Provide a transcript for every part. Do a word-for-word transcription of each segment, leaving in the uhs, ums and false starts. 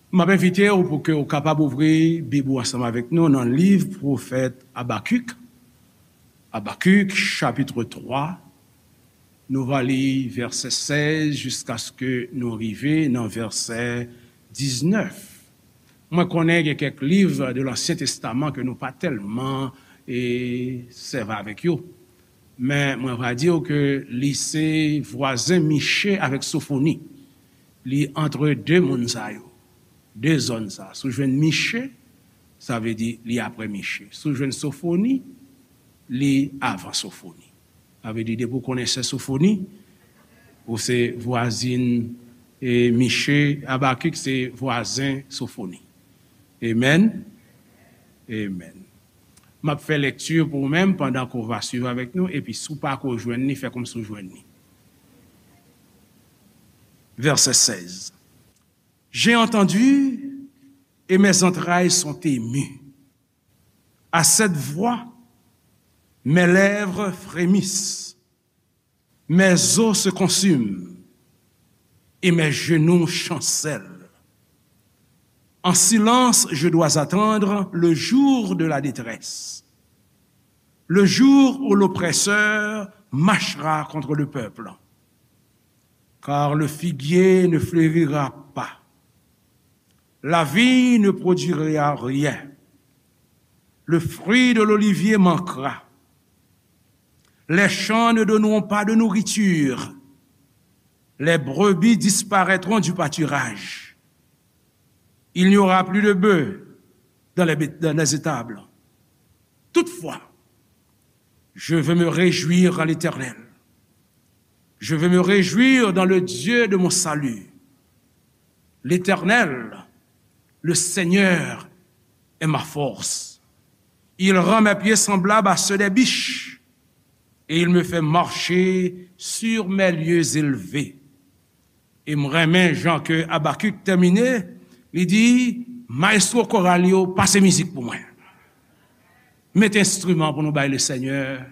M ap envite w pou ke w kapab ouvri Bib ou ansanm avèk nou nan liv pwofèt Abakik. Abakik, chapit twa, nou va li vèsè sèz jiskaske nou rive nan vèsè diznèf. Mwen konnen gen kèk liv de Lansyen Testaman ke nou pa tèlman, e, sèvi avèk yo. Men mwen va di w ke li se vwazen Miche avèk Sofoni. Li antre de moun sa yo, de zòn sa. Si w jwenn Miche, sa vle di li apre Miche. Si w jwenn Sofoni, li avan Sofoni. Sa vle di, depi w konnen sè Sofoni, ou se vwazin, e, Miche, Abakik se vwazen Sofoni. Amen. Amen. M ap fè lekti pou ou menm pandan ke w va swiv avèk nou, epi si w pa ko jwenn li, fè kòmsi w jwenn li. Vèsè sèz. J'ai entendu et mes entrailles sont émues. À cette voix, mes lèvres frémissent, mes os se consument et mes genoux chancellent. En silence, je dois attendre le jour de la détresse, le jour où l'oppresseur marchera contre le peuple. Car le figuier ne fleurira pas, la vigne ne produira rien, le fruit de l'olivier manquera, les champs ne donneront pas de nourriture, les brebis disparaîtront du pâturage, il n'y aura plus de bœufs dans les, dans les étables. Toutefois, je veux me réjouir à l'Éternel. Je veux me réjouir dans le Dieu de mon salut. L'Éternel, le Seigneur, est ma force. Il rend mes pieds semblables à ceux des biches, et il me fait marcher sur mes lieux élevés. E m renmen jan ke Abakik tèmine, li di, "Maestro koral yo, pase mizik pou mwen. Mete enstriman pou nou bay Lesenyè."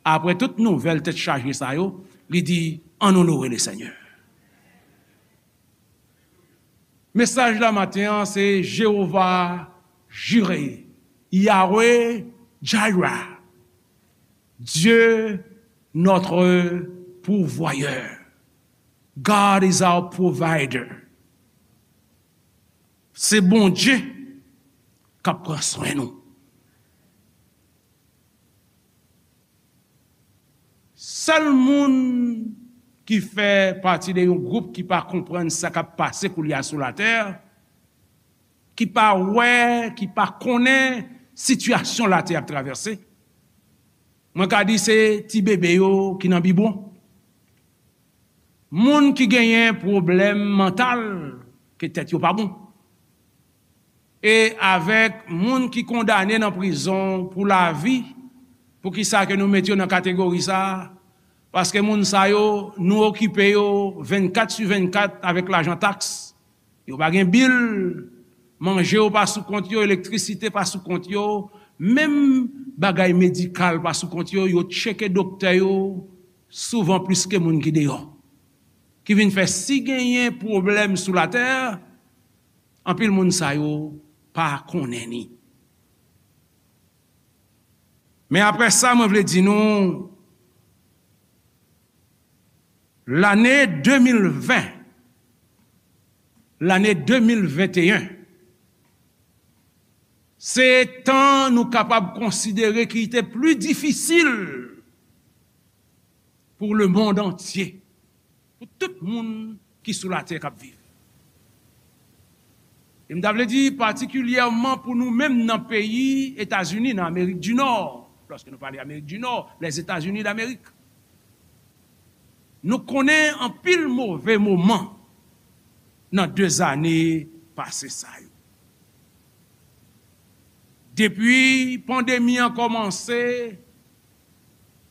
Apre tout nouvèl tèt chaje sa yo, li di, "Ann onore Lesenyè." Mesaj la maten an se Jewova Jire, Yahweh Jireh, Dieu notre pourvoyeur. God is our provider. Se Bondye k ap pran swen nou. Sèl moun ki fè pati de yon gwoup ki pa konprann sa k ap pase koulye a sou latè, ki pa wè, ki pa konnen sitiyasyon latè ap travèse, mwen ka di se ti bebe yo ki nan bibwon. Moun ki genyen pwoblèm mantal, ke tèt yo pa bon. E avèk moun ki kondane nan prizon pou lavi, poukisa ke nou met yo nan kategori sa a? Paske moun sa yo, nou okipe yo vennkat sou vennkat avèk lajan taks. Yo pa gen bil, manje yo pa sou kont yo, elektrisite pa sou kont yo, menm bagay medikal pa sou kont yo, yo tcheke doktè yo souvan plis ke moun ki deyò. Ki vin fè si genyen pwoblèm sou latè, anpil moun sa yo pa konnen ni. Men apre sa, mwen vle di nou, lane de mil ven, lane de mil venteyen, se tan nou kapab konsidere ki te pli difisil pour le monde entier, pou tout moun ki sou latè k ap viv. E m ta vle di patikilyèman pou nou menm nan peyi Etazini, nan Amerik di Nò, lòske nou pale Amerik di Nò, les États-Unis d'Amérique, nou konnen anpil move moman nan de zane pase sa yo. Depi pandemi an kòmanse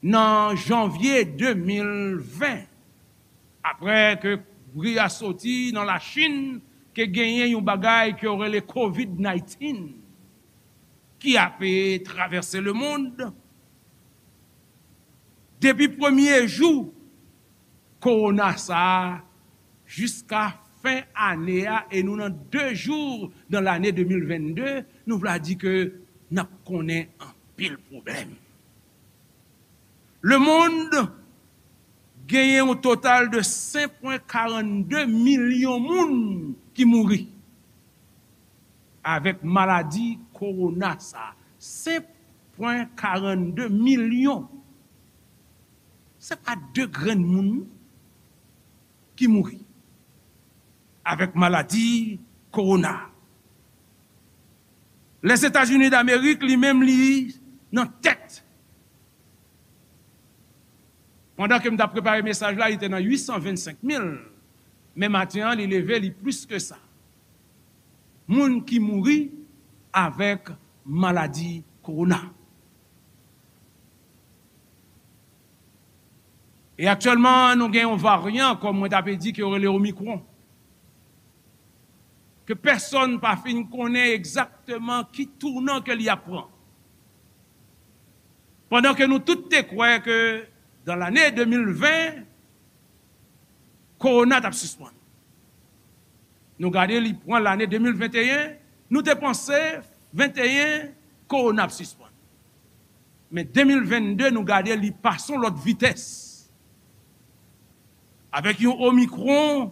nan janvye de mil ven, apre ke bri a soti nan Lachin, ke genyen yon bagay ke yo rele kovid naytin ki ape travèse lemonn, depi premye jou kowona sa a jiska fen ane a e nou nan de jou nan lane de mil vennde, nou vle di ke n ap konnen anpil pwoblèm. Lemonn genyen yon total de senk pwen karannde milyon moun ki mouri avèk maladi kowona sa. Senk pwen karannde milyon. Se pa de grenn moun ki mouri avèk maladi kowona. Lèzetazini Damerik, li menm, li nan tèt. Pandan ke m t ap prepare mesaj la, li te nan uit san vennsenk mil. Men maten an, li leve, li plis ke sa. Moun ki mouri avèk maladi kowona. E aktyèlman, nou gen yon varyan, kòm mwen t ap di, ke yo rele Omicron. Ke pèsonn pa fin konnen egzakteman ki tounan ke li ap pran. Pandan ke nou tout te kwè ke dan lane de mil ven, kowona t ap sispann. Nou gade, li pran lane de mil venteyen, nou te panse venteyen, kowona ap sispann. Men de mil vennde, nou gade, li pase yon lòt vitès. Avèk yon Omicron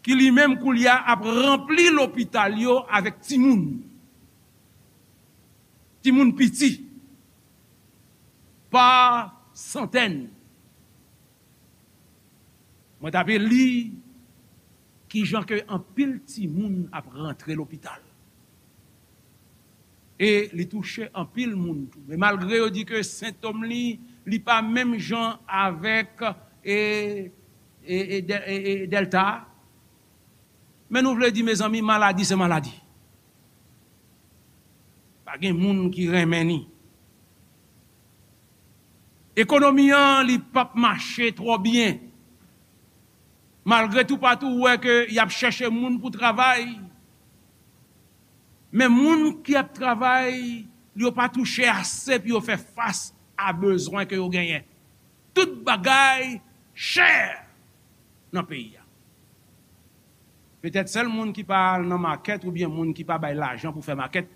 ki li menm koulye a ap ranpli lopital yo avèk timoun. Timoun piti. Pa santèn. Mwen t ape li kijan ke anpil timoun ap rantre lopital. E li touche anpil moun tou. Men malgre yo di ke sentòm li, li pa menm jan avèk, e, e, e, dè- e, e dèlta. Men nou vle di, mezanmi, maladi se maladi. Pa gen moun ki renmen ni. Ekonomi an, li p ap mache twò byen. Malgre toupatou ou wè ke y ap chèche moun pou travay, men moun ki ap travay, yo pa touche ase pou yo fè fas a bezwen ke yo genyen. Tout bagay chè nan peyi a. Petèt sèl moun ki pa al nan makèt oubyen moun ki pa bay lajan pou fè makèt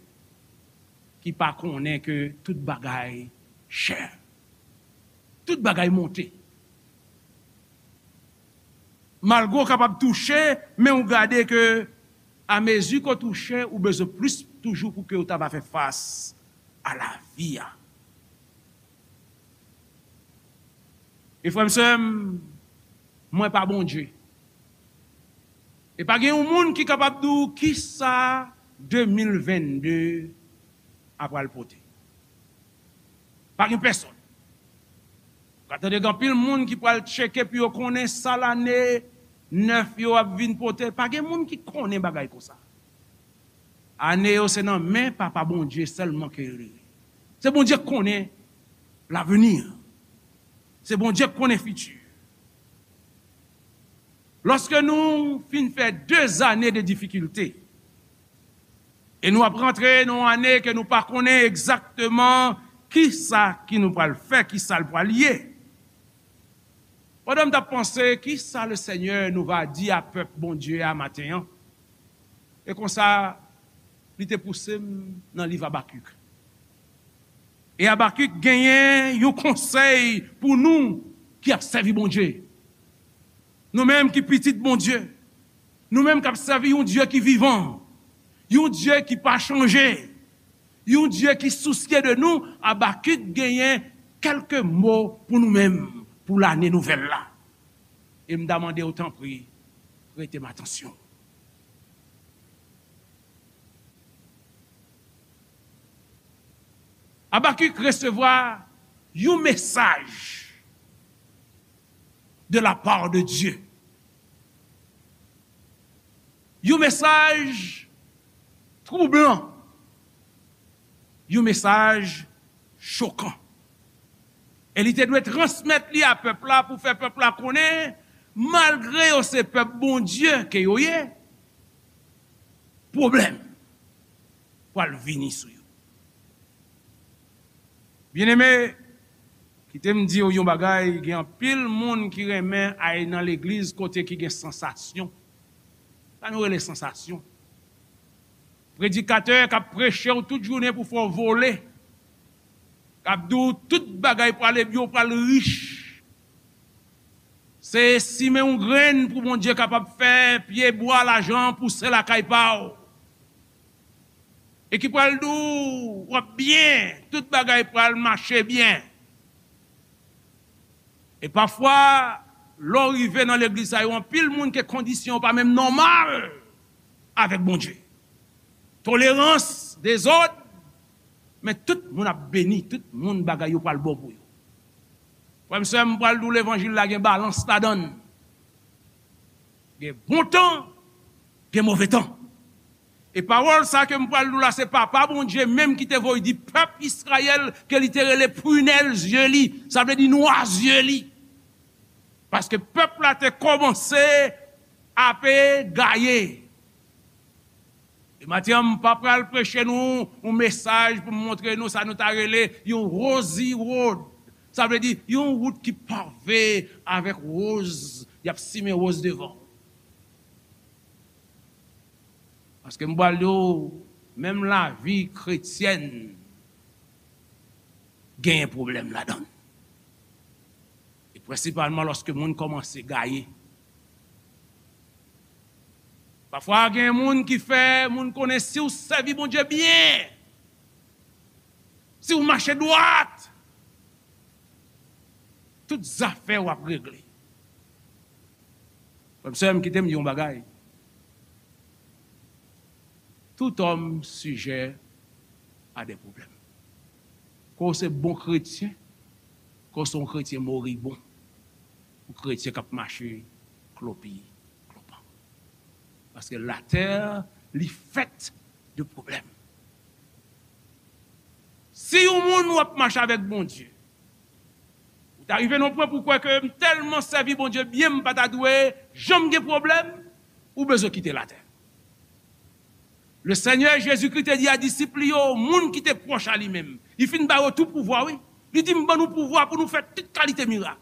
ki pa konnen ke tout bagay chè. Tout bagay monte. Malgre w kapab touche, men w gade ke amezi ke w touche, ou bezwen plis toujou pou ke w ta va fè fas a lavi a. E frè m, sè m, mwen pa Bondye. E pa gen yon moun ki kapab di w kisa de mil vennde a pral pote. Pa gen pèsonn. Ou ka tande gen anpil moun ki pral tcheke pou yo konnen sa lane nèf yo ap vin pote. Pa gen moun ki konnen bagay konsa. Ane yo se nan men Papa Bondye sèlman ke yo rete. Se Bondye k konnen lavni. Se Bondye k konnen fiti. Lòske nou fin fè de zane de difikilte, e nou ap rantre nan yon ane ke nou pa konnen egzakteman kisa ki nou pral fè, kisa l pral ye. Pandan m t ap panse, kisa Lesenyè nou va di a pèp Bondye a maten an? E konsa, li te pouse m nan liv Abakik. E Abakik genyen yon konsèy pou nou ki ap sèvi Bondye. Nou menm ki pitit Bondye, nou menm k ap sèvi yon Dye ki vivan, yon Dye ki pa chanje, yon Dye ki sousye de nou, Abakik genyen kèlke mo pou nou menm pou lane nouvèl la. E m ta mande w, tanpri, prete m atansyon. Abakik resevwa yon mesaj de la part de Dieu. Yon mesaj twoublan. Yon mesaj chokan. E li te dwe transmèt li a pèp la pou fè pèp la konnen, malgre yo se pèp Bondye ke yo ye, pwoblèm pral vini sou yo. Byeneme, kite m di w yon bagay, gen anpil moun ki renmen al nan legliz kote ki gen sansasyon. Sa nou rele sansasyon. Predikatè k ap preche w tout jounen pou fè w vole, k ap di w tout bagay prale byen, w pral rich. Se simen yon grenn pou Bondye kapab fè pye bwa lajan pouse lakay pa w. E ki pral di w w ap byen, tout bagay pral mache byen. E pafwa, lè w rive nan legliz sa yo, anpil moun ke kondisyon yo pa menm nòmal avèk Bondye. Tolerans, dezòd, men tout moun ap beni, tout moun bagay yo pral bon pou yo. Frè m, sè m, m pral di w levanjil la gen balans ladan l. Gen bon tan, gen move tan. E pawòl sa ke m pral di w la, se Papa Bondye menm ki te voye di pèp Izrayèl ke li te rele pwinèl zye li, sa vle di nwa zye li. Paske pèp la te kòmanse ape gaye. E maten an, m pa pral preche nou yon mesaj pou m montre nou sa nou ta rele yon rosy road. Sa vle di yon wout ki pave avèk woz, y ap simen woz devan. Paske m pral di w, menm lavi kretyèn genyen pwoblèm ladan l. E prensipalman lòske moun kòmanse gaye. Pafwa, gen moun ki fè moun konnen si w sèvi Bondye byen, si w mache dwat, tout zafè w ap regle. Frè m, sè m, kite m di yon bagay. Tout homme sujet à des problèmes. Ke w se bon kretyen, ke w se yon kretyen moribon, yon kretyen k ap mache klopi klopan. Paske latè, li fèt de pwoblèm. Si yon moun w ap mache avèk Bondye, ou ta rive nan yon pwen pou w kwè ke m tèlman sèvi Bondye byen, m pa ta dwe janm gen pwoblèm, ou bezwen kite latè. Le Senyè Jezikri te di a disip li yo, moun ki te pwòch a li menm, li fin ba yo tout pouvwa, wi. Li di, "M ban nou pouvwa pou nou fè tout kalite mirak."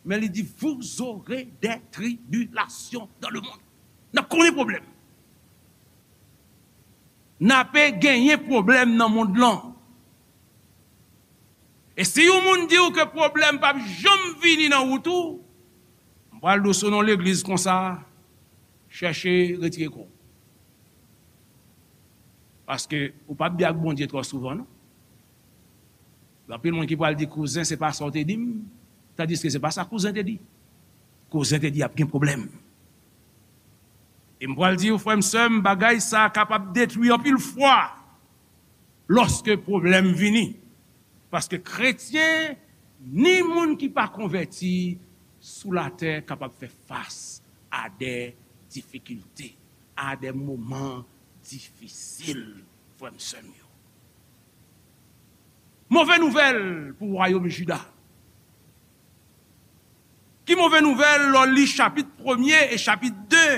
Men li di, "Vous aurez des tribulations dans le monde." N ap konnen pwoblèm. N ape genyen pwoblèm nan mond lan. E si yon moun di w ke pwoblèm p ap janm vini nan wout ou, m pral di w sou non legliz konsa, chèche retire kò w. Paske ou p ap byen ak Bondye twò souvan, non. Gen anpil moun ki pral di, "Kouzen, se pa sa w te di m," tandiske se pa sa kouzen te di. Kouzen te di y ap gen pwoblèm. E m pral di w, frè m, sè m, bagay sa a kapab detwi anpil fwa lòske pwoblèm vini. Paske kretyen, ni moun ki pa konvèti sou latè kapab fè fas a de difikilte, a de moman difisil, frè m, sè m yo. Move nouvèl pou wayòm Jida. Ki move nouvèl lè w li chapit premye e chapit de?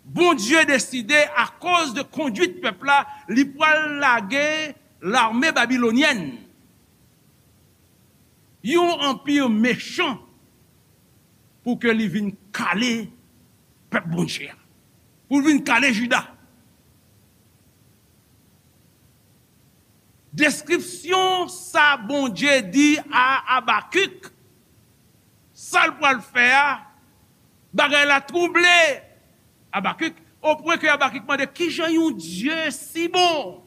Bondye deside, akoz de kondwit pèp la, li pral lage lame babilonyèn, yon anpi mechan, pou ke li vin kale pèp Bondye a, pou l vin kale Jida. Deskripsyon sa Bondye di a Abakik, sa l pral fè a, bagay la twouble Abakik, opwen ke Abakik mande, "Kijan yon Dye si bon,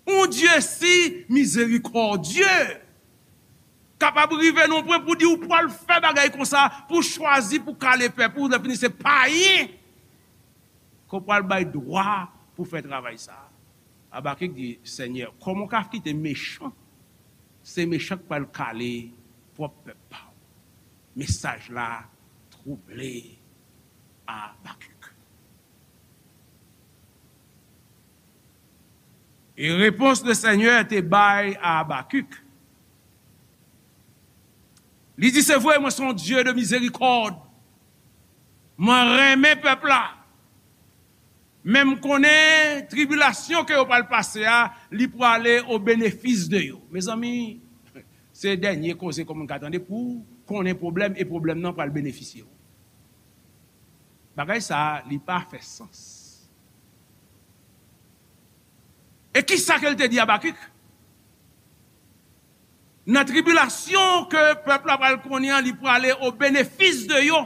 yon Dye si mizerikòdye, kapab rive nan yon pwen pou di ou pral fè bagay konsa, pou chwazi, pou kale pèp ou, lè fini se payen ke w pral bay dwa pou fè travay sa a?" Abakik di, "Senyè, kòman w ka kite mechan, se mechan k pral kale pwòp pèp pa w?" Mesaj la twouble Abakik. E repons le Senyè te bay a Abakik. Li di, "Se vre, mwen se yon Dye de mizerikòd. Mwen renmen pèp la. Men m konnen tribilasyon ke yo pral pase a, li prale o benefis de yo." Mezanmi, se dènye koze ke moun ka tande pou konnen pwoblèm e pwoblèm nan pral benefisye w. Bagay sa a, li pa fè sans. E ki sa ke l te di Abakik? Nan tribilasyon ke pèp la pral konnen an, li prale o benefis de yo.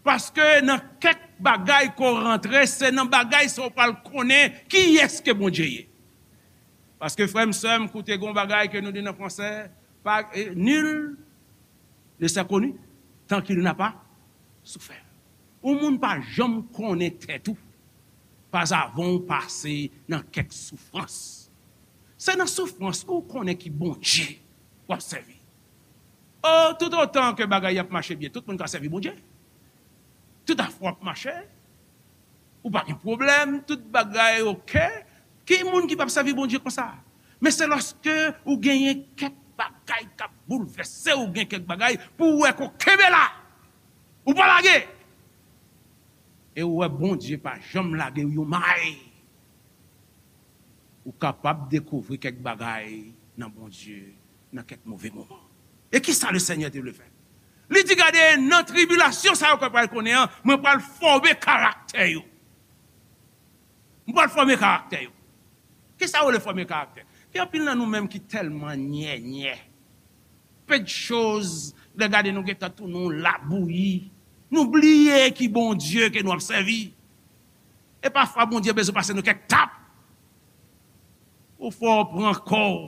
Paske nan kèk bagay ke w rantre, se nan bagay sa w pral konnen kiyès ke Bondye ye. Paske, frè m, sè m, koute, gon bagay ke nou di nan fransè, pa, eh, nul ne s'est connu tant qu'il n'a pas souffert. Yon moun pa janm konnen tèt ou, pa avan w pase nan kèk soufrans. Se nan soufrans ou konnen ki Bondye w ap sèvi. Oh, tout otan ke bagay ap mache byen, tout moun ka sèvi Bondye. Tout afè w ap mache, ou pa gen pwoblèm, tout bagay oke. Ki moun ki p ap sèvi Bondye konsa? Men se lòske ou genyen kèk bagay k ap boulvèse, ou gen kèk bagay pou w wè ke w kenbe la, ou pa lage. E ou wè Bondye pa janm lage w yon may. Ou kapab dekouvri kèk bagay nan Bondye nan kèk move moman. E ki sa Lesenyè te vle fè? Li di, gade, nan tribilasyon sa yo ke w pral konnen an, mwen pral fòme karaktè yo. Mwen pral fòme karaktè yo. Ki sa w rele fòme karaktè? Gen anpil nan nou menm ki tèlman nyènyè. Pe de choz, lè gade nou gentan tounen yon labouyi. Nou bliye ki Bondye ke nou ap sèvi. E pafwa Bondye bezwen pase nou kèk tap. Pou fè w pran kò w.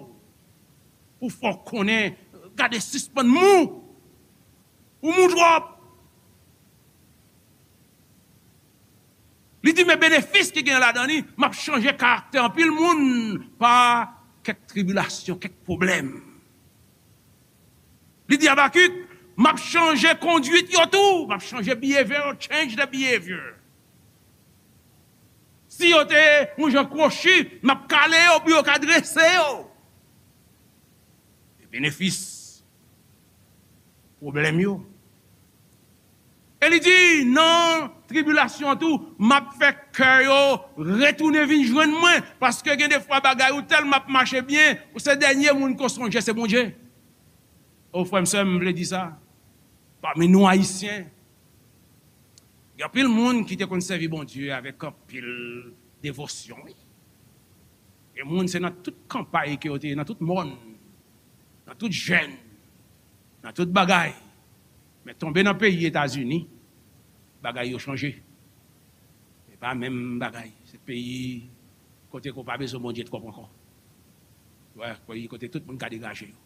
Pou fè w konnen, gade, sispann mou. Ou mou twòp. Li di, men benefis ki gen ladan li, m ap chanje karaktè anpil moun pa kèk tribilasyon, kèk pwoblèm. Li di Abakik, m ap chanje kondwit yo tou, m ap chanje behavior, change the behavior. Si yo te yon jan kwochi, m ap kale yo pou yo ka drese yo. E benefis pwoblèm yo. E li di, nan tribilasyon an tou, m ap fè kè yo retounen vin jwenn mwen, paske gen de fwa bagay ou tèlman ap mache byen, ou se dènye moun ke w sonje, se Bondye. O, frè m, sè m, m vle di sa. Pami nou Ayisyen, gen anpil moun ki te konn sèvi Bondye avèk anpil devosyon, wi. Gen moun, se nan tout kanpay ke yo te ye, nan tout mòn, nan tout jèn, nan tout bagay. Men tonbe nan peyi Etazini, bagay yo chanje. E pa menm bagay. Se peyi kote ke w pa bezwen Bondye twòp ankò. Wè, peyi kote tout moun ka degaje yo.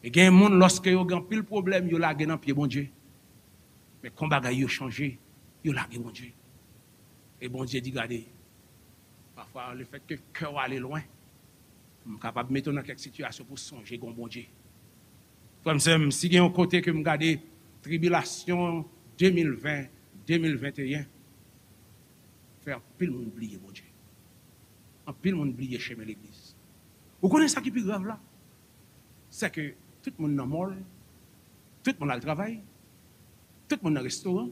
E gen moun, lòske yo gen anpil pwoblèm, yo lage nan pye Bondye. Men kon bagay yo chanje, yo lage Bondye. E Bondye di, gade, pafwa, lefètke kè w ale lwen, m kapab mete w nan kèk sitiyasyon pou w sonje gen yon Bondye. Frè m, sè m, si gen yon kote ke m gade tribilasyon de mil ven, de mil venteyen, fè anpil moun bliye Bondye. Anpil moun bliye chemen legliz. Ou konnen sa ki pi grav la? Se ke tout moun nan mòl, tout moun al travay, tout moun nan restoran,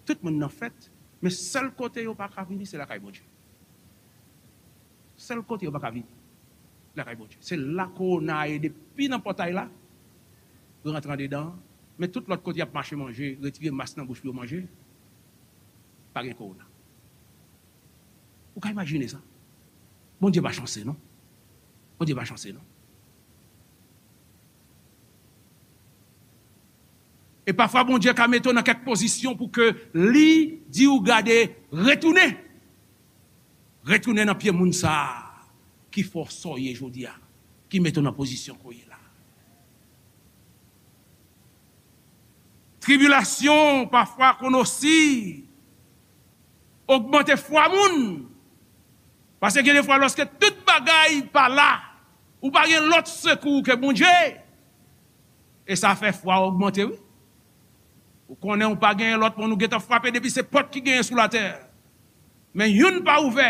tout moun nan fèt, men sèl kote yo pa ka vini, se lakay Bondye. Sèl kote yo pa ka vini, lakay Bondye. Se la kowona a ye depi nan pòtay la, rantre andedan an, men tout lòt kote y ap mache manje, retire mas nan bouch pou yo manje, pa gen kowona. Ou ka imajine sa? Bondye pa chanse, non. Bondye pa chanse, non. E pafwa, Bondye ka mete w nan kèk pozisyon pou ke li di w, gade, retounen. Retounen nan pye moun sa a ki fè w sa w ye jodi a, ki mete w nan pozisyon ke w ye la. Tribilasyon pafwa konn osi ogmante fwa moun. Paske gen de fwa, lòske tout bagay pa la, ou pa gen lòt sekou ke Bondye. E sa fè fwa w ogmante, wi. Ou konnen ou pa gen lòt moun, ou gentan frape depi se pòt ki genyen sou latè. Men youn pa ouvè.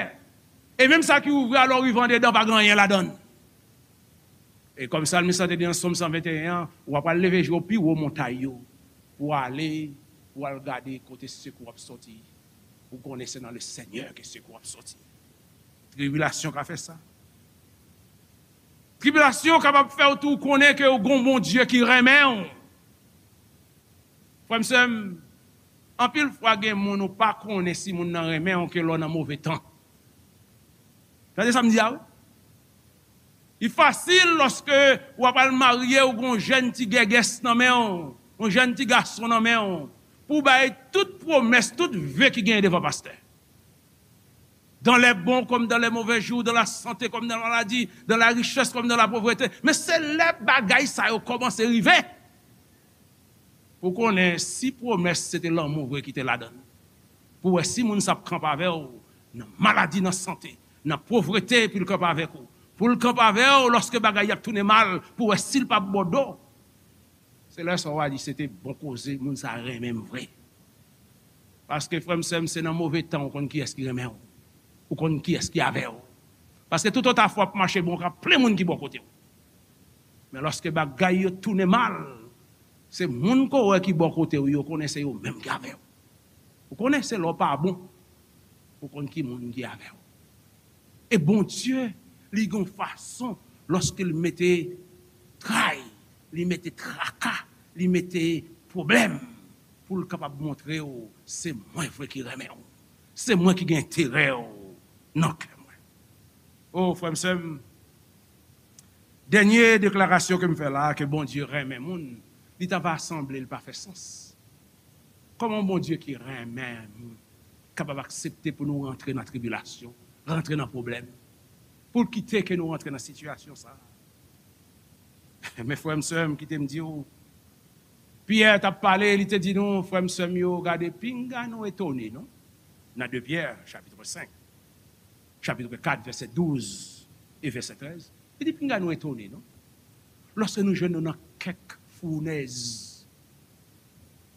E menm sa ki ouvè a, lè w rive andedan, pa gen anyen ladan l. E kòm salmis lan te di nan Sòm san venteyen an, w ap al leve je w pi wo montay yo, pou w ale, pou w al gade kote sekou w ap sòti. Ou konnen se nan Lesenyè ke sekou w ap sòti. Tribilasyon ka fè sa. Tribilasyon kapab fè w tou konnen ke w gon Bondye ki renmen w. Frè m, sè m, Anpil fwa gen moun ou pa konnen si moun nan renmen w ke lè w nan move tan. Tande sa m di a wi. Li fasil lòske w ap al marye, ou gen yon jèn ti gègès nan men w, yon jèn ti gason nan men w, pou w bay tout pwomès, tout ve ki genyen devan pastè. Dans les bons comme dans les mauvais jours, dans la santé comme dans la maladie, dans la richesse comme dans la pauvreté. Men se lè bagay sa yo kòmanse rive pou konnen si pwomès se te lanmou vre ki te ladan l. Pou wè si moun sa ap kanpe avè w nan maladi, nan sante, nan povrete, pou l kanpe avèk ou. Pou l kanpe avè w lòske bagay y ap tounen mal, pou wè si l p ap ba w do. Se lè sa w a di se te bon koze, moun sa renmen m vre. Paske frè m, sè m, se nan move tan ou konn kiyès ki renmen w. Ou konn kiyès ki avè w. Paske tout ota fwa ap mache bon, ka plen moun ki bò kote w. Men lòske bagay yo tounen mal, se moun ke w wè ki bò kote w yo, konnen se yo menm ki avè w. Ou konnen se lè w pa bon, ou konn ki moun ki avè w. E Bondye, li gen yon fason, lòske l mete tray, li mete traka, li mete pwoblèm, pou l kapab montre w, se mwen vre ki renmen w. Se mwen ki gen enterè w nan kè mwen. O, frè m, sè m, dènye deklarasyon ke m fè la, ke Bondye renmen moun, li ta va sanble l pa fè sans. Kòman yon Bondye ki renmen moun kapab aksepte pou nou rantre nan tribilasyon, rantre nan pwoblèm, pou l kite ke nou rantre nan sitiyasyon sa a? Men frè m, sè m, kite m di w, Pyè t ap pale, li te di nou, frè m, sè m yo, gade, pinga nou etone, non? Nan de Pyè, chapit senk, chapit kat, vèsè douz e vèsè trèz. Li di, pinga nou etone, non? Lòske nou jwenn nou nan kèk founèz,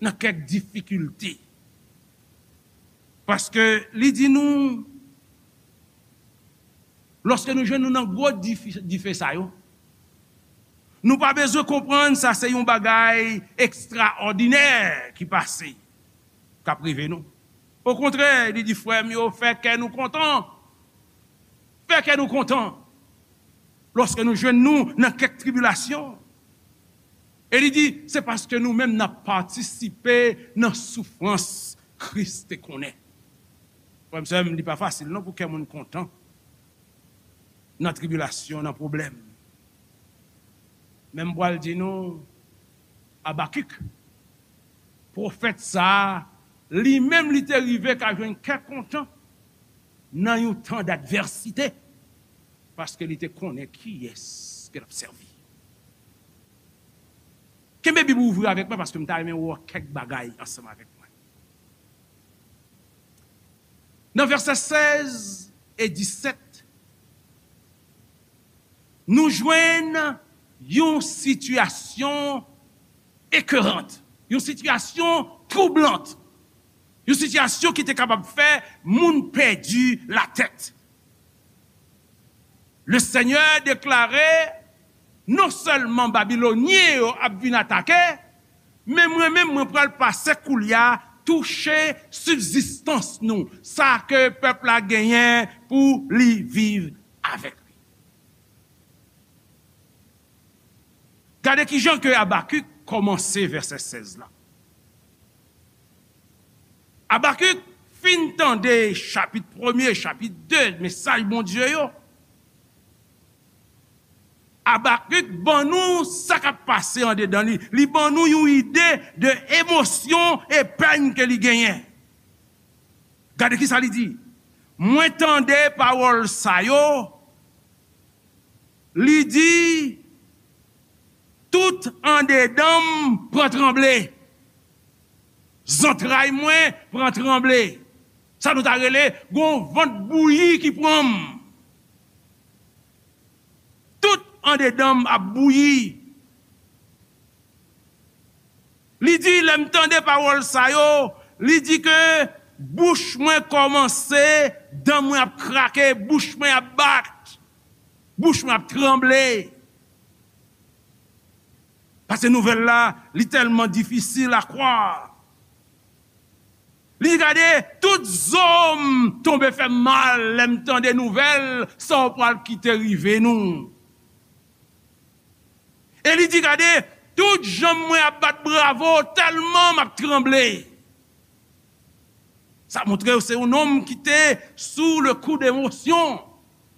nan kèk difikilte. Paske li di nou, lòske nou jwenn nou nan gwo dife, dife sa yo, nou pa bezwen konprann sa se yon bagay ekstraòdinè ki pase, k ap rive nou. Okontrè, li di, frè m yo, fè kè nou kontan. Fè kè nou kontan lòske nou jwenn nou nan kèk tribilasyon. E li di, se paske nou menm n ap patisipe nan soufrans Kris te konnen. Frè m, sè m, li pa fasil non pou kè moun kontan nan tribilasyon, nan pwoblèm. Men m pral di nou, Abakik, pwofèt sa a, li menm li te rive ka jwenn kè kontan nan yon tan dadvèsite, paske li te konnen kiyès ke l ap sèvi. Kenbe Bib ou ouvri avèk mwen, paske m ta renmen wè kèk bagay ansanm avèk mwen. Nan vèsè sèz e disèt, nou jwenn yon sitiyasyon ekerant, yon sitiyasyon twoublante, yon sitiyasyon ki te kapab fè moun pèdi latèt. Le Senyè deklare, non sèlman Babilonyen yo ap vin atake, men mwen menm, mwen pral pase koulye a touche sibzistans nou, sa ke pèp la genyen pou li viv avèk li. Gade kijan ke Abakik kòmanse vèsè sèz la. Abakik fin tande chapit premye, chapit de, mesaj Bondye yo. Abakik ban nou sa k ap pase andedan li. Li ban nou yon ide de emosyon e pèn ke li genyen. Gade kisa li di. Mwen tande pawòl sa yo. Li di, tout andedan m pran tranble. Zantray mwen pran tranble. Sa nou ta rele, gon vant bouyi ki pran m. Tout andedan m ap bouyi. Li di, lè m tande pawòl sa yo, li di ke bouch mwen kòmanse, dan mwen ap krake, bouch mwen ap bat, bouch mwen ap tranble. Paske nouvèl la, li tèlman difisil a kwè. Li di, gade, tout zo m tonbe fè m mal lè m tande nouvèl sa w pral kite rive nou. E li di, gade, tout janm mwen ap bat bravo, tèlman m ap tranble. Sa montre w se yon nonm ki te sou le kou de emosyon.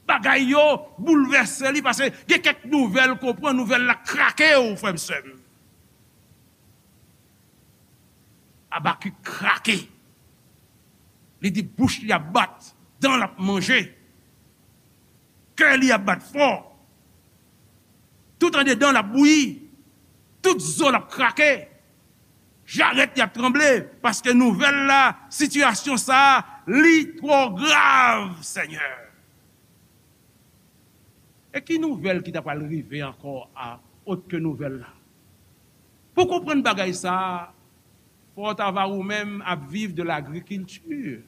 Bagay yo boulvèse li, paske gen kèk nouvèl ke w pran, nouvèl la krake w, frè m, sè m. Abakik krake. Li di bouch li ap bat, dan l ap manje, kè li ap bat fò. Tout andedan l ap bouyi, tout zo l ap krake, jarèt li ap tranble, paske nouvèl la, sitiyasyon sa a, li twò grav, Senyè. E ki nouvèl ki ta pral rive ankò a, ot ke nouvèl la? Pou konprann bagay sa a, fò w ta va ou menm ap viv de lagrikilti.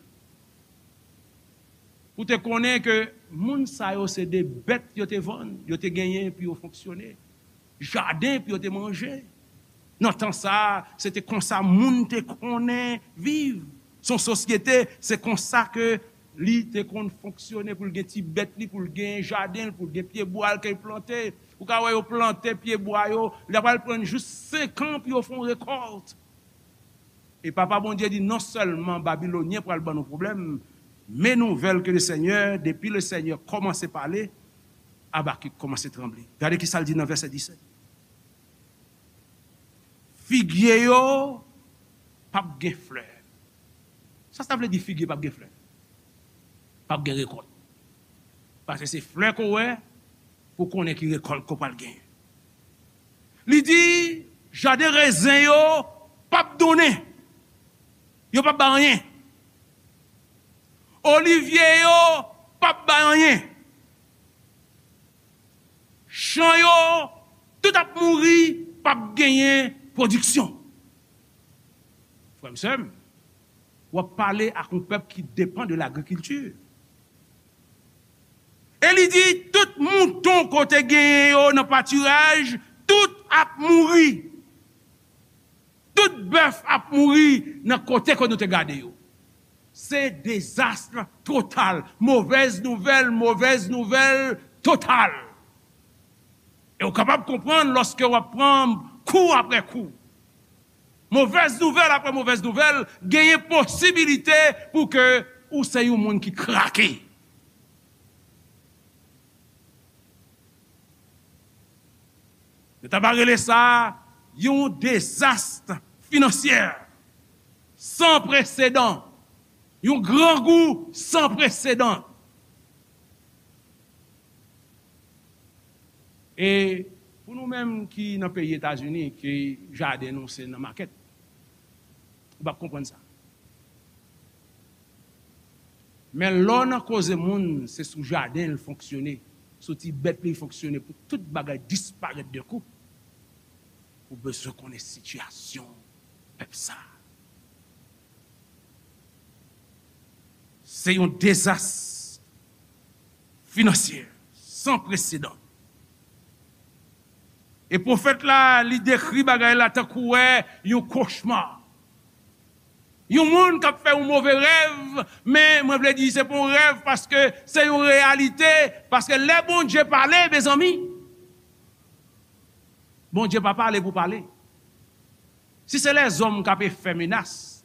Pou te konnen ke moun sa yo se de bèt yo te vann, yo te genyen pou yo fonksyone, jaden pou yo te manje. Nan tan sa a, se te konsa moun te konnen viv. Se yon sosyete, se konsa ke li te konn fonksyone, pou l gen ti bèt li, pou l gen jaden l, pou l gen pyebwa l ke l plante. Ou ka wè yo plante pyebwa yo, li ta pral pran jis senk an pou yo fè yon rekòt. E Papa Bondye di, non sèlman Babilonyen pral ban nou pwoblèm, men nouvèl ke le Senyè, depi le Senyè kòmanse pale, Abakik kòmanse tranble. Gade ki sa l di nan vèsè disèt. Figye yo p ap gen flè. Sa sa vle di, figye p ap gen flè? P ap gen rekòt. Paske se flè ke w wè pou w konnen ki rekòt ke w pral genyen. Li di, jaden rezen yo p ap donnen. Yo p ap bay anyen. Olivye yo p ap bay anyen. Chan yo, tout ap mouri, p ap genyen pwodiksyon. Frè m, sè m, w ap pale ak yon pèp ki depann de lagrikilti. E li di, tout mouton ke w te genyen yo nan patiraj, tout ap mouri. Tout bèf ap mouri nan kote ke nou te gade yo. Se dezas total. Movèz nouvèl, movèz nouvèl total. E w kapab konprann lòske w ap pran kou apre kou. Movèz nouvèl apre movèz nouvèl, genyen posibilite pou ke ou se yon moun ki krake. Yo ta va rele sa yon dezas finansyè san presedan, yon grangou san presedan. E pou nou menm ki nan peyi Etazini, ke jaden nou se nan makèt, ou p ap konprann sa. Men lè w nan koze moun, se sou jaden l fonksyone, sou ti bèt li fonksyone, pou tout bagay disparèt de kou, ou bezwen konnen sitiyasyon pèp sa a. Se yon dezas finansyè san presedan. E pwofèt la, li dekri bagay la tankou wè yon kochma. Yon moun k ap fè yon move rèv, men mwen vle di se pa yon rèv paske se yon reyalite, paske lè Bondye pale, mezanmi, Bondye pa pale pou pale. Si se lèzòm k ap fè menas,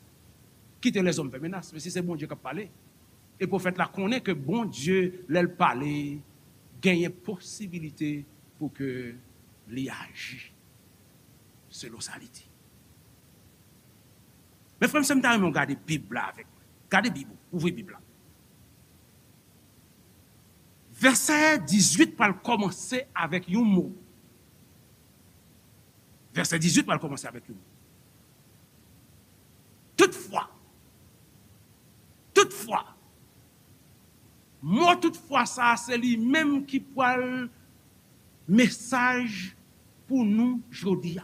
kite lèzòm fè menas. Men si se Bondye k ap pale, e pwofèt la konnen ke Bondye, lè l pale, genyen posibilite pou ke li aji selon sa li di. Men frè m, sè m, ta renmen w gade Bib la avèk mwen. Gade Bib ou, ouvri Bib la. Vèsè dizuit pral kòmanse avèk yon mo. Vèsè dizuit pral kòmanse avèk yon mo. Toutfwa, toutfwa, mo toutfwa sa a, se li menm ki pral mesaj pou nou jodi a.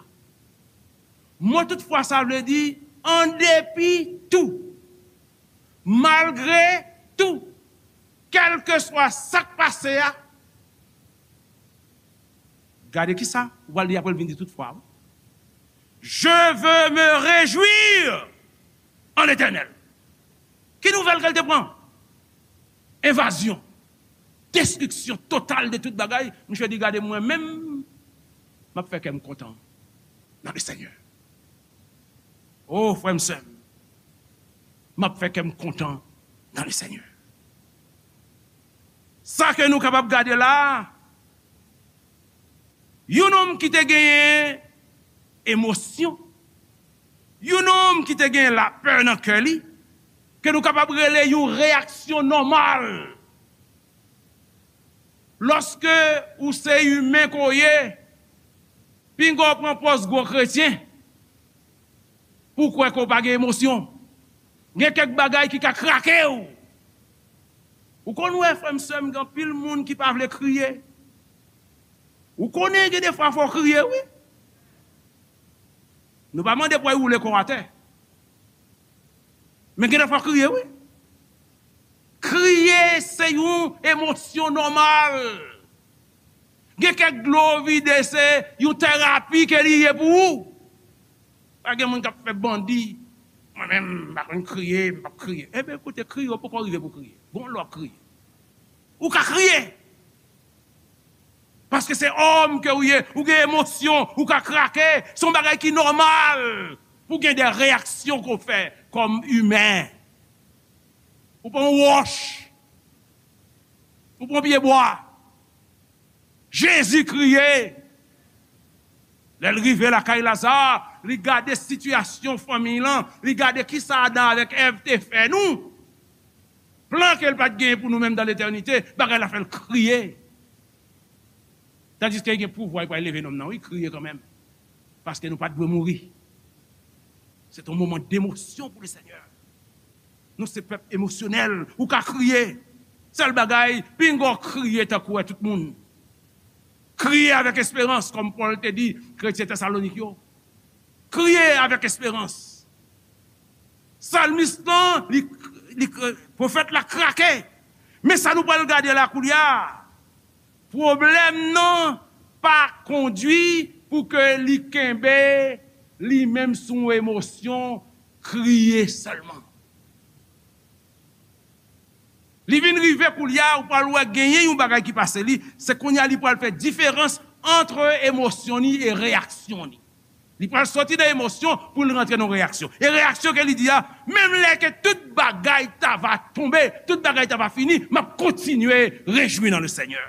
Mo toutfwa sa vle di, an depi tou, malgre tou, kèlkeswa sa k pase a, gade kisa ou pral di apre l vin di toutfwa. Je veux me réjouir en l'Éternel. Ki nouvèl ke l te pran? Envazyon, destriksyon total de tout bagay. Misye di, gade mwen menm, m ap fè kè m kontan nan Lesenyè. O, frè m, sè m, M ap fè kè m kontan nan le Senyè. Sa ke nou kapab gade la a, yon nonm ki te genyen emosyon, yon nonm ki te genyen lapè nan kè li, ke nou kapab rele yon reyaksyon nòmal. Lòske ou se imen ke w ye, pinga w pran pòz gwo kretyen pou w kwè ke w pa gen emosyon. Gen kèk bagay ki ka krake w. Ou konn wè, frè m, sè m, gen anpil moun ki pa vle kriye. Ou konnen gen defwa fò w kriye, wi. Nou pa mande pou w woule kò w atè. Men gen defwa w kriye, wi. Kriye se yon emosyon nòmal. Gen kèk dlo vide se yon terapi ke li ye pou ou. Pa gen moun k ap fè bandi. Mwen menm, m pa konn kriye, m p ap kriye. Ebyen, koute, kriye, w poko rive pou kriye. Bon, lè w ap kriye. Ou ka kriye. Paske se òm ke ou ye, ou gen emosyon, ou ka krake. Se yon bagay ki nòmal pou gen de reyaksyon ke w fè kòm imen. Ou pran yon wòch, ou pran pye bwa. Jezi kriye. Lè l rive lakay Laza, li gade sitiyasyon fanmi lan, li gade kisa Adan avèk Èv te fè nou. Plan ke l pa t genyen pou nou menm dan letènite, bagay la fè l kriye. Tandiske li gen pouvwa, li pral leve nonm nan, wi, kriye kanmenm. Paske nou pa t dwe mouri. Se te yon moman demosyon pou le Senyè. Nou se pèp emosyonèl. Ou ka kriye. Sèl bagay, pinga w kriye tankou wè tout moun. Kriye avèk esperans, kòm Pòl te di kretyen Tesalonik yo. Kriye avèk esperans. Salmis lan, li, li, pwofèt la krake. Men sa nou pral gade la koulye a. Pwoblèm nan pa kondwi pou ke li kenbe li menm sou yon emosyon, kriye sèlman. Li vin rive koulye a, ou pral wè genyen yon bagay ki pase li, se kounye a li pral fè diferans ant emosyon ni e reyaksyon ni. Li pral soti nan emosyon pou l rantre nan reyaksyon. E reyaksyon ke li di a, menm lè ke tout bagay ta va tonbe, tout bagay ta va fini, m ap kontinye rejwi nan le Senyè.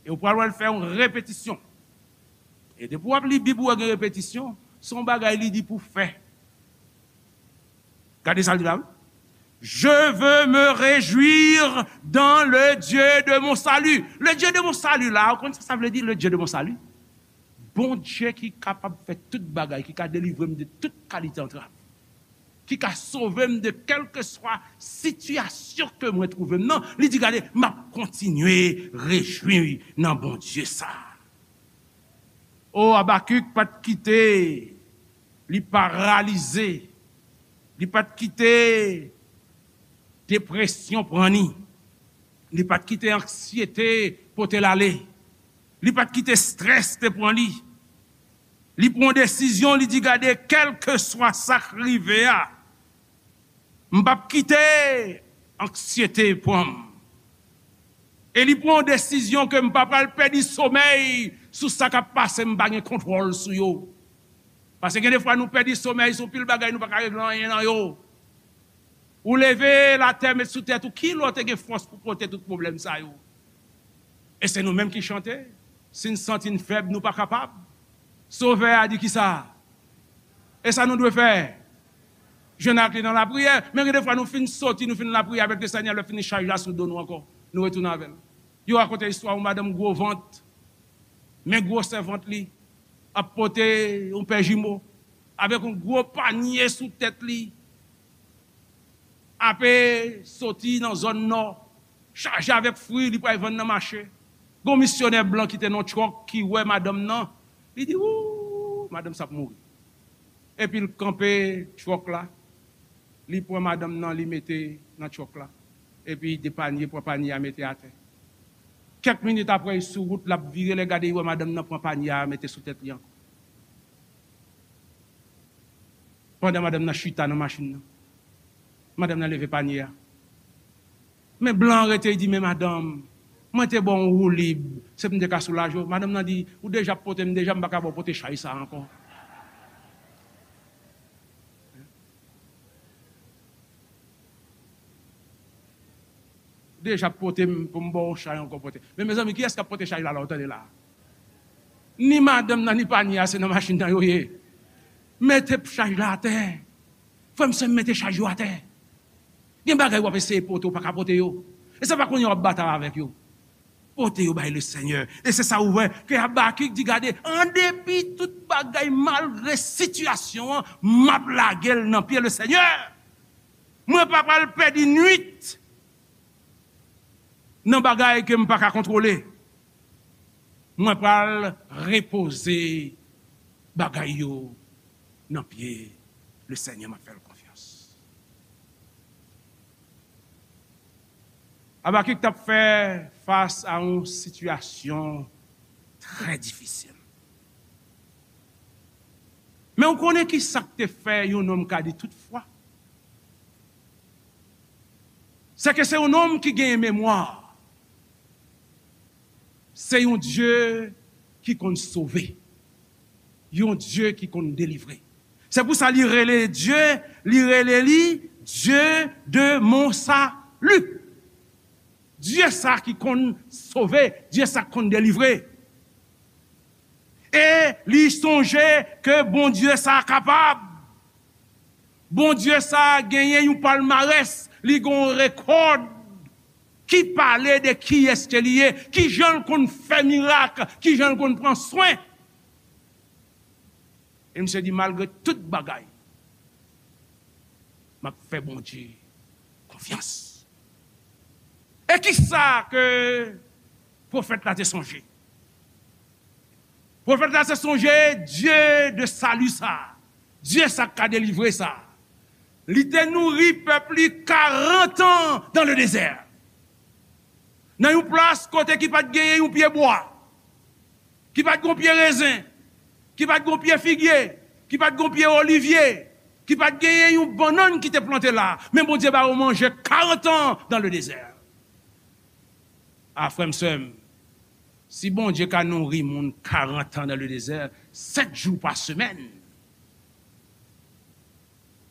E ou pral wè l fè yon repetisyon. E depi w ap li Bib ou wè gen repetisyon, se yon bagay li di pou fè. Gade sa l di la, wi. Je veux me réjouir dans le Dieu de mon salut. Le Dieu de mon salut la, ou konn sa sa vle di, le Dieu de mon salut? Bondye ki kapab fè tout bagay, ki ka delivre m de tout kalite antrav, ki ka sove m de kèlkeswa sitiyasyon ke mwen twouve m nan, li di, gade, m ap kontinye rejwi nan Bondye sa. O, Abakik pa t kite li paralize, li pa t kite depresyon pran li, li pa t kite anksyete pote l ale, li pa t kite estrès te pran li. Li pran yon desizyon, li di, gade, kèlkeswa sa k rive a, m p ap kite anksyete pran m. E li pran yon desizyon ke m pa pral pèdi somèy sou sa k ap pase, m pa gen kontwòl sou yo. Paske gen defwa nou pèdi somèy sou pil bagay, nou pa ka regle anyen nan yo. Ou leve l atè, met sou tèt ou, ki lè w te gen fòs pou pote tout pwoblèm sa yo? E se nou menm ki chante, si n santi n fèb, nou pa kapab. Sovè a di kisa? E sa nou dwe fè? Jwenn ak li nan lapriyè. Men gen defwa nou fin soti, nou fin lapriyè avèk le Senyè, lè fini chaj la sou do nou ankò. Nou retounen avè l. Yo rakonte istwa yon madanm gwo vant, men gwosè vant li, ap pote yon pè jimo, avèk yon gwo panye sou tèt li, ape soti nan zòn nò, chaje avèk fwi, li pral vann nan mache. Gon misyonè blan ki te nan yon twòk ki wè madanm nan, li di, wou, madanm sa ap mouri. Epi l kanpe twòk la, li pran madanm nan, li mete nan twòk la. Epi de panye, pran panye a, mete atè. Kèk minit apre, li sou wout, l ap vire, lè gade, li wè madanm nan pran panye a, mete sou tèt li ankò. Pandan madanm nan chita nan machin nan, madanm nan leve panye a. Men blan an rete, li di, men madanm, mwen te ba w yon woulib, se pou m te ka soulaje w. Madanm nan di, ou deja ap pote m deja, m pa ka ba w pote chay sa a ankò. deja pote m pou m ba w chay ankò pote. Men mezanmi, kiyès k ap pote chay la, la, w tande la? Ni madanm nan, ni panye a, se nan machin nan yo ye. Mete chay la atè. Frè m, sè m, mete chay yo atè. Gen bagay w ap eseye pote, w pa ka pote yo. E se pa kounye a w ap batay avèk yo. Pote yo bay Lesenyè. E se sa ou wè ke Abakik di, gade, an depi tout bagay, malgre sitiyasyon an, m ap lage l nan pye Lesenyè. Mwen pa pral pèdi nwit nan bagay ke m pa ka kontwole. Mwen pral repoze bagay yo nan pye Lesenyè, m ap fè l konfyans. Abakik t ap fè fas a yon sitiyasyon trè difisil. Men w konnen ki sa k te fè yon nonm ka di tout fwa? Se ke se yon nonm ki genyen memwa. Se yon Dye ki konn sove. Yon Dye ki konn delivre. Se pou sa li rele Dye, li rele li Dieu de mon salut. Dye sa ki konn sove, Dye sa ki konn delivre. E li sonje ke Bondye sa kapab. Bondye sa genyen yon palmarès, li gen yon rekòd ki pale de kiyès ke li ye, kijan l konn fè mirak, kijan l konn pran swen. E misye di, malgre tout bagay, m ap fè Bondye konfyans. E kisa ke pwofèt la te sonje? Pwofèt la te sonje Dye de sali sa, Dye sa k ka delivre sa. Li te nouri pèp li karant an dans le désert. Nan yon plas kote ki pa t genyen yon pye bwa, ki pa t gen yon pye rezen, ki pa t gen yon pye figye, ki pa t gen yon pye olivye, ki pa t genyen yon bannann ki te plante la. Men Bondye ba yo manje karant an dans le désert. A, frè m, sè m, si Bondye ka nouri moun karant an dans le désert, sèt jou pa semèn,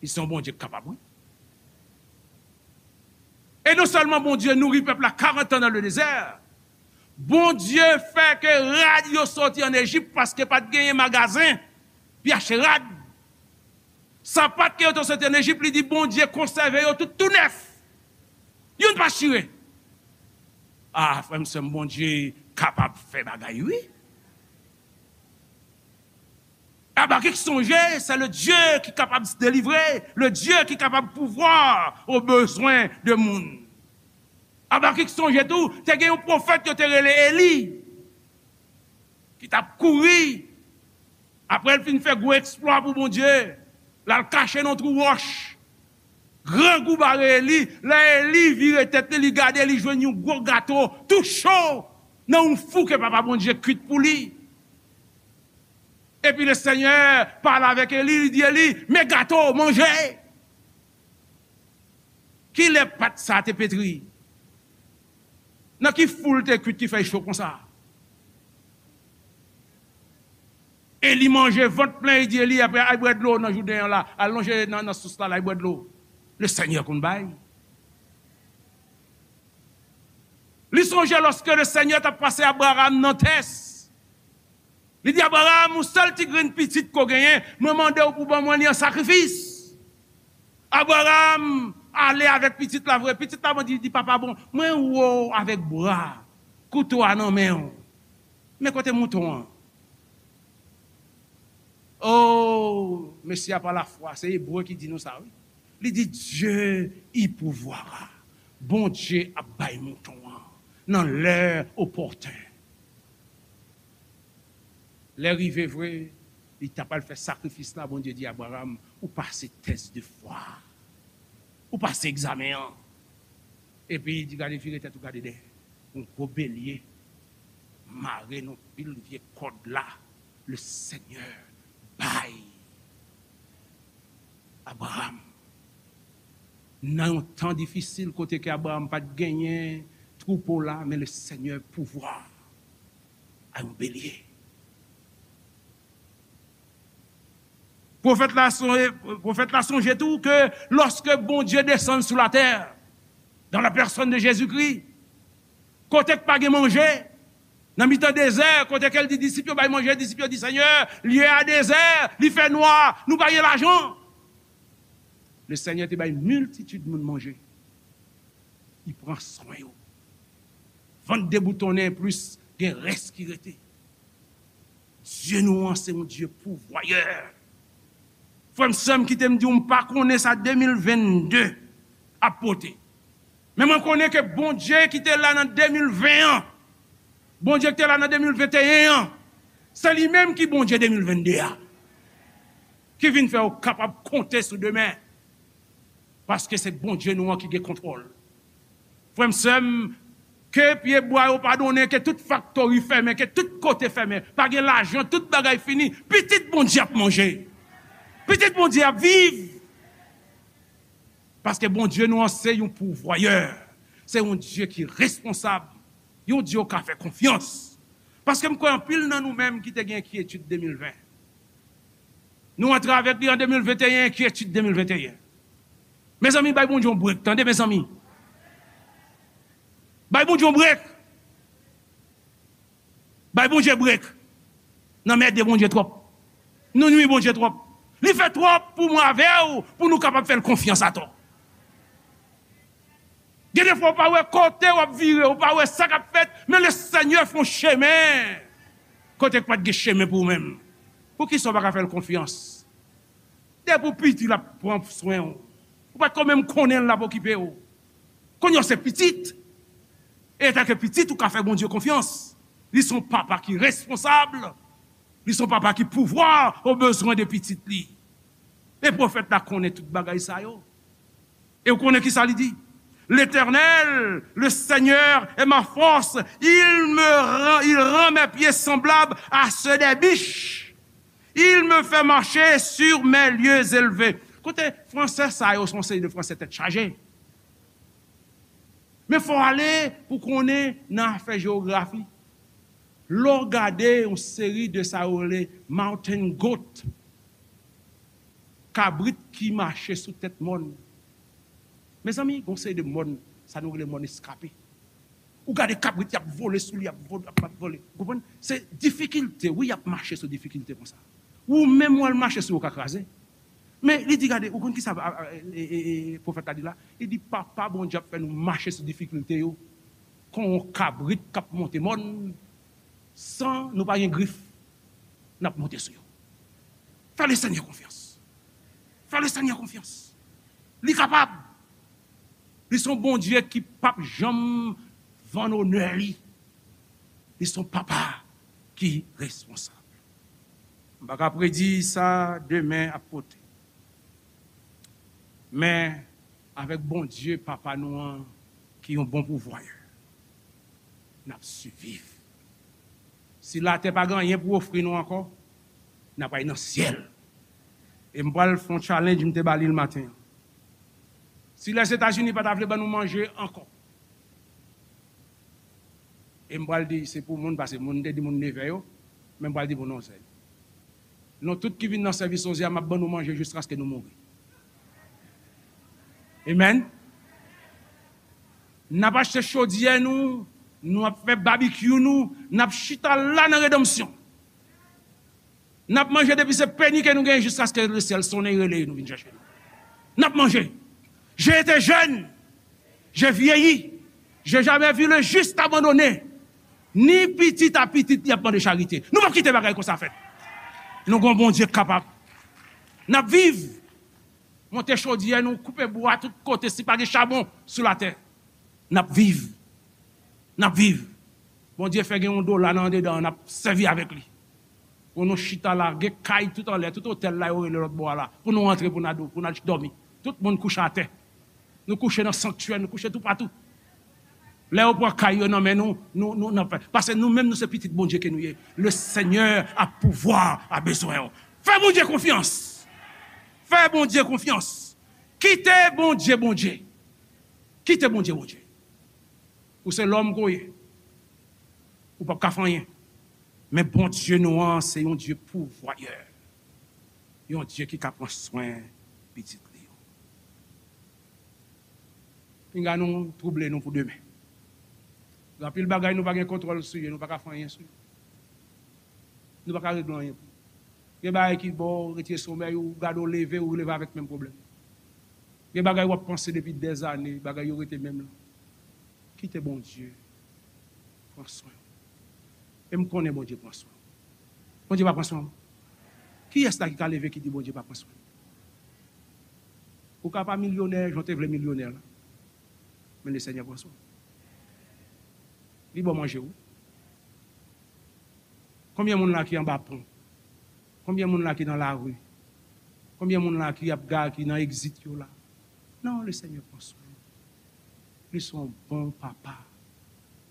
li se yon Bondye k kapab, wi. E non sèlman Bondye nouri pèp la karant an dans le désert, Bondye fè ke rad yo soti ann Ejip paske pa t genyen magazen pou y achte rad. Sapat ke yo te soti ann Ejip, li di Bondye konsève yo tout tou nèf. Youn pa chire. A, frè m, sè m, Bondye kapab fè bagay, wi. Abakik sonje, se le Dye ki kapab delivre, le Dye ki kapab pouvwa o bezwen de moun. Abakik sonje tou, te gen yon pwofèt yo te rele Eli, ki t ap kouri, apre l fin fè gwo eksplwa pou Bondye, l al kache nan twou wòch. Grangou bare Eli, lè Eli vire tèt li, li gade, li jwenn yon gwo gato, tou cho, nan yon fou ke Papa Bondye kwit pou li. Epi Lesenyè pale avèk Eli, li di Eli, men gato, manje. Kilè pat sa te petri? Nan ki fou l te kwit ki fè l cho konsa? Eli manje vant plen, li di Eli, apre al bwè dlo nan jouden an la, al lonje nan, nan sous la, al bwè dlo. Lesenyè konn bay. Li sonje lòske Lesenyè t ap pase Abraram nan tès. Li di, Abraram, yon sèl ti grenn pitit ke w genyen, mwen mande w pou ban mwen li an sakrifis. Abraram ale avèk pitit la vre. Pitit la, bon, di, di, papa, bon, mwen wè w avèk bwa, kouto a nan men w. Men kote mouton an? O, mesye a pa lafwa, se Ebre ki di nou sa, wi. Li di, Dieu y pourvoira. Bondye ap bay mouton an nan lè opòten. Lè rive vre, li ta pral fè sakrifis la, Bondye di Abraram, ou pase tès de fwa. Ou pase egzamen an. Epi li di, gade, vire tèt ou, gade dèyè. Yon gwo belye mare nan pil vye kòd la. Lesenyè bay Abraram. Nan yon tan difisil kote ke Abraram pa t genyen twoupo la, men Lesenyè pouvwa a yon belye. Pwofèt la sonje, pwofèt la sonje tou ke lòske Bondye desann sou latè, Dans la personne de Jésus-Christ. Kote k pa gen manje, nan mitan dezè, kote ke l di disip yo bay manje, disip yo di, Senyè, lye a dezè, li fè nwa, nou pa gen lajan. Le Senyè te bay miltitid moun manje. Li pran swen yo. Vant deboutonnen plis, gen rès ki rete. Dye nou an se yon Dye pouvwayè. Frè m, sè m, kite m di w, m pa konnen sa de mil vennde ap pote. Men mwen konnen ke Bondye ki te la nan de mil ven an, Bondye ki te la nan de mil venteyen an, se li menm ki Bondye de mil vennde a, ki vin fè w kapab konte sou demen. Paske se Bondye nou an ki gen kontwòl. Frè m, sè m, ke pyebwa yo pa donnen, ke tout faktori fèmen, ke tout kote fèmen, pa gen lajan, tout bagay fini, pitit Bondye ap manje. Pitit Bondye ap viv. Paske Bondye nou an se yon pouvwayè. Se yon Dye ki responsab. Yon Dye w ka fè konfyans. Paske m kwè anpil nan nou menm ki te gen enkyetid de mil ven. Nou antre avèk li an de mil venteyen, enkyetid de mil venteyen. Mezanmi, bay Bondye yon brek, tande, mezanmi. Bay Bondye yon brek. Bay Bondye brek. N anmède Bondye twòp. Nou nwi Bondye twòp. Li fè twòp pou mwen avè w, pou nou kapab fè l konfyans atò. Gen de fwa, w pa wè kote w ap vire, w pa wè sa k ap fèt, men Lesenyè fè yon chemen kote k pa t gen chemen pou ou menm. Poukisa w pa ka fè l konfyans? Depi w piti, l ap pran swen w. Ou pa t ko menm konnen l ap okipe w. Kounye a w se pitit. E antanke pitit, ou ka fè Bondye konfyans. Li se yon papa ki responsab. Li se yon papa ki pouvwa o bezwen de pitit li. E pwofèt la konnen tout bagay sa yo. E w konnen ki sa li di? L'Éternel, le Seigneur, est ma force. Il me rend, il rend mes pieds semblables à ceux des biches. Il me fait marcher sur mes lieux élevés. Kote fransè sa yo, se yon seri de fransè tèt chaje. Men fò w ale pou konnen nan afè jewografi. Lè w gade yon seri de sa yo rele mountain goat, kabrit ki mache sou tèt mòn. Mezanmi, gen yon seri de mòn, sa nou rele mòn eskape. Ou gade kabrit, y ap vole sou li, y ap vole, y ap vole. Ou konprann? Se difikilte, wi, y ap mache sou difikilte konsa. Ou menm, w al mache sou yo, w ka kraze. Men li di, gade, ou konn ki sa, a, a, e, e, e, pwofèt la di la? Li di, Papa Bondye ap fè nou mache sou difikilte yo, kon yon kabrit k ap monte mòn, san nou pa gen grif, n ap monte sou yo. Fè Lesenyè konfyans. Fè Lesenyè konfyans. Li kapab. Li se yon Bondye ki p ap janm vann onè li. Li se yon papa ki responsab. M pa ka predi sa demen ap pote. Men, avèk Bondye, Papa nou an, ki yon bon pouvwayè, n ap siviv. Si latè pa gen anyen pou ofri nou ankò, n ap al nan syèl. E m pral fè yon challenge, m te ba li l maten an. Si Lèzetazini pa ta vle ban nou manje ankò, e m pral di, se pou moun, paske moun, m te di moun nevè yo, men m pral di pou nou, sè. Nou tout ki vin nan sèvis onz è a, m ap ban nou manje jiskaske nou mouri. Amen. N ap achte chodyè nou, nou ap fè babikyou nou, n ap chita la nan redanmsyon. N ap manje depi se peni ke nou genyen jiskaske lesyèl sonnen rele nou vin chèche nou. N ap manje. J'ai été jeune, j'ai vieilli, j'ai jamais vu le juste abandonné, ni pitit a pitit li ap mande charite. Nou p ap kite bagay konsa fèt. Nou gon Bondye k kapab. N ap viv. Monte chodyè nou, koupe bwa tout kote, si pa gen chabon sou latè. N ap viv. N ap viv. Bondye fè gen yon dola nan andedan, n ap sèvi avèk li. Pou nou chita la, gen kay tout anlè, tout otèl la yo rele lòt bò a la. Pou nou antre, pou n a dò-, pou n al dòmi. Tout moun kouche atè. Nou kouche nan sanktyè, nou kouche toupatou. Lè yo pran kay yo nan men nou, nou, nou, n ap fè. Paske nou menm, nou se pitit Bondye ke nou ye. Le Senyè a pouvwa a bezwen w. Fè Bondye konfyans. Fè Bondye konfyans. Kite Bondye, Bondye. Kite Bondye, Bondye. Ou se lòm ke w ye. Ou p ap ka fè anyen. Men Bondye nou an, se yon Dye pouvwayè. Yon Dye ki ka pran swen pitit li yo. Pinga nou twouble nou pou demen. Gen anpil bagay nou pa gen kontwòl sou yo, nou pa ka fè anyen sou yo. Nou pa ka regle anyen pou yo. Gen bagay ki ba w retire somèy ou, gade w leve, ou leve avèk menm pwoblèm. Gen bagay w ap panse depi dèzane, bagay yo rete menm lan. Kite Bondye pran swen w. E m konnen Bondye pran swen w. Bondye pa pran swen w. Kiyès la ki ka leve ki di Bondye pa pran swen l? Ou ka pa milyonè, jan w te vle milyonè la. Men Lesenyè pran swen w. Li ba w manje w. Konbyen moun la ki anba pon? Konbyen moun la ki nan lari? Konbyen moun la ki ap ga, ki nan egzit yo la? Non, Lesenyè pran swen yo. Li se yon bon papa.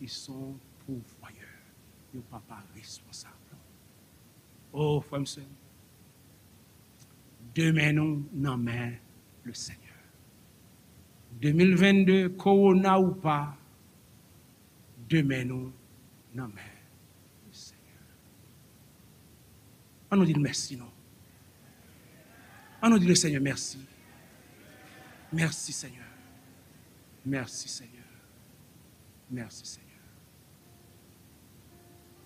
Li se yon pouvwayè. Yon papa responsab. O, frè m, sè m, demen nou nan men Lesenyè. De mil vennde, kowona ou pa, demen nou nan men Lesenyè. An nou di l mèsi, non. An nou di Lesenyè mèsi. Mèsi, Senyè. Mèsi, Senyè. Mèsi, Senyè.